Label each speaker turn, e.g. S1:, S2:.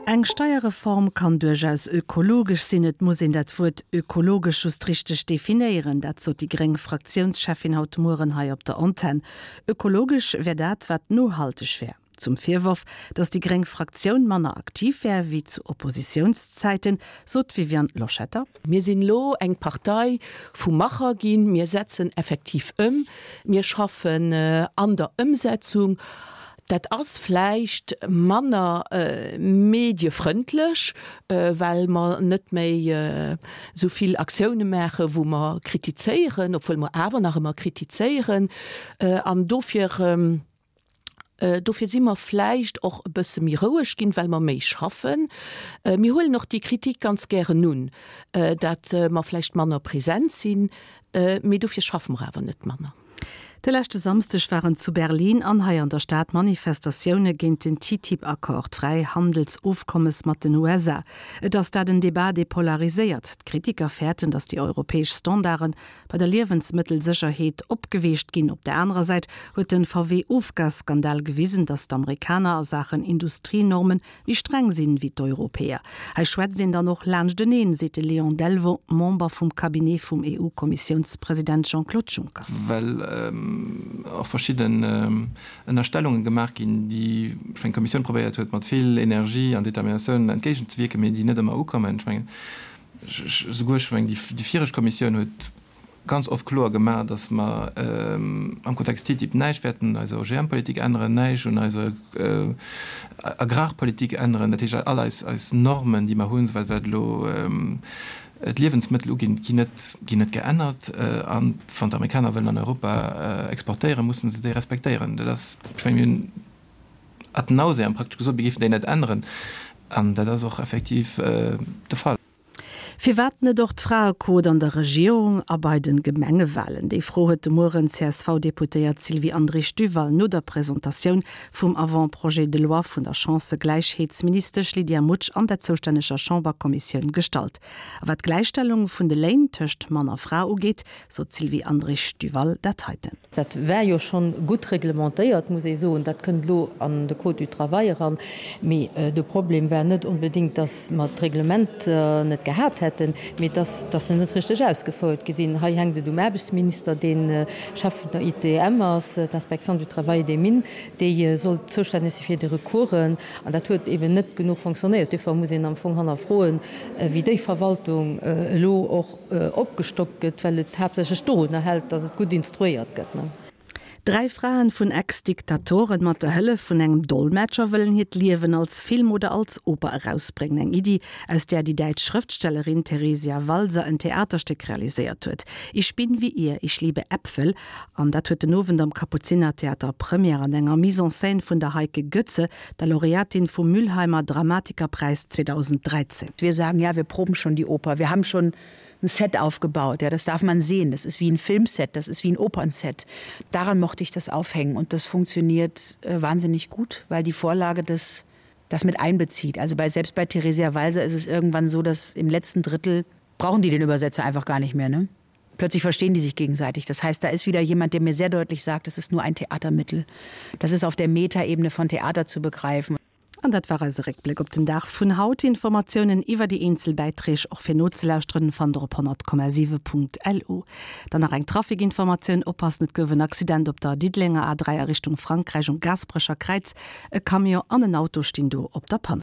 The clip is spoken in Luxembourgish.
S1: Eng Steierreform kann duerchaus ökologesch sinn. Et muss een dat Wuert ökologesch just richteg definéieren. Dat sot déi gréng Fraktiounscheffin haut Mueren hei op der Antenn. Ökologesch wär dat, wat nohalteg wär. Zum Virworf, datt déi gréng Fraktioun manner aktiv wär wéi zu Oppositiounszäiten, sot d'Viviane Loschetter.
S2: Mir sinn elo eng Partei vu Macher ginn. Mir setzen effektiv ëm. Mir schaffen an der Ëmsetzung. Dat ass vläicht manner mediefrëndlech, well mer net méi esou vill Aktioune maachen, wou mer kritizéieren, obwuel mer awer nach ëmmer kritizéieren. An dofir. Dofir si mer vläicht och e bësse méi roueg ginn, well mer méi schaffen. Mir huelen och déi Kritik ganz gären un, dat mer vläicht manner present sinn, mee dofir schaffe mer awer net manner.
S1: De leschte Samsdeg waren zu Berlin an hei an der Stad Manifestatioune géint den TTIP-Accord, d'Fräihandelsofkommes mat den USA. Et ass dat en Debat, dee polariséiert. D'Kritiker fäerten, datt déi europäesch Standarde bei der Liewensmëttelsécherheet opgeweecht ginn. Op der anerer Säit huet de VW-Ofgasskandal gewisen, datt d'Amerikaner a Saachen Industrienorme méi streng sinn wéi d'Europäer. Hei schwätzt een dann och laanschteneen, seet de Léon Delvaux, Member vum Cabinet vum EU-Kommissiounspresident Jean-Claude Juncker.
S3: Well och verschidden Ënnerstellunge gemaach ginn, déi, ech mengen, d'Kommissioun probéiert huet, mat vill Energie an Determinatioun entgéigenzewierken, mee déi net ëmmer ukommen. Ech mengen, Souguer, ech mengen, déi viregt Kommissioun huet ganz oft kloer gemaach, datt mer am Kontext TTIP näischt wäerten un eiser OGM-Politik änneren, näischt un eiser Agrarpolitik änneren. Dat heescht, all eis Normen, déi mer hunn, wat elo d'Liewensmëttel uginn, ginn net, ginn net geännert. A wann d'Amerikaner wëllen an Europa exportéieren, musse se déi respektéieren. Dat ass, ech mengen, mir hunn Ad nauseam praktesch gesot, mir géifen déi net änneren. An dat ass och effektiv de Fall.
S1: Firwat net och d'Fraequot an der Regierung a bei de Gemengewalen? Déi Fro huet de Mueren d'CSV-Deputéiert Sylvie Andrich-Duval no der Presentatioun vum Avant-projet de loi vun der Chancëgläichheetsministesch Lydia Mutsch an der zoustänneger Chamberkommissioun gestallt. A wat d'Gläichstellung vun de Léin tëscht Mann a Fra ugeet, sot d'Sylvie Andrich-Duval dat heiten.
S4: Dat war jo schonn gutt reglementéiert, muss ee soen. Dat kënnt elo an de Code du travail eran. Mee de Problem war net onbedéngt, dass mer d'Reglementer net gehat hätten, mee dass dass se net richteg ausgefouert gi sinn. Hei hänkt et um Aarbechtsminister, dee Chef vun der ITM ass, d'Inspection du travail et des mines, déi soll zoustänneg si fir déi Recoursen. An dat huet eeben net genuch fonctionnéiert. Duerfir muss een am Fong hannerfroen, wéi déi Verwaltung elo och opgestockt gëtt, well et haaptsächlech dorunner hält, datt et gutt instruéiert gëtt.
S1: Dräi Fraen vun Ex-Diktatoren mat der Hëllef vun engem Dolmetscher wëllen hiert Liewen als Film oder als Oper erausbréngen. Eng Iddi, aus där déi däitsch Schrëftstellerin Theresia Walser en Theaterstéck realiséiert huet. Ich bin wie ihr, ich liebe Äpfel. An dat huet den Owend am Kapuzinertheater Première an enger Mise en scène vun der Heike Goetze, der Laureatin vum Mülheimer Dramatikerpreis 2013.
S5: Wir sagen ja, wir proben schon die Oper. Wir haben schon ein Set aufgebaut. Ja, das darf man sehen. Das ist wie ein Filmset, das ist wie ein Opernset. Daran mochte ich das aufhängen und das funktioniert äh, wahnsinnig gut, weil die Vorlage des das mit einbezieht. Also bei selbst bei Theresia Walser ist es irgendwann so, dass im letzten Drittel brauchen die den Übersetzer einfach gar nicht mehr ne? Plötzlich verstehen die sich gegenseitig. Das heißt, da ist wieder jemand, der mir sehr deutlich sagt, das ist nur ein Theatermittel. Das ist auf der Metaebene von Theater zu begreifen.
S1: An dat war eise Réckbléck op den Dag vun haut. Informatiounen iwwer déi eenzel Bäiträg och fir nozelauschteren fannt der op 100,7.lu. Dann nach eng Trafikinformatioun, Oppassen, et gouf en Accident op der Diddelenger A3 a Richtung Frankräich um Gaasperecher Kräiz. E Camion an en Auto stinn do op der Panne.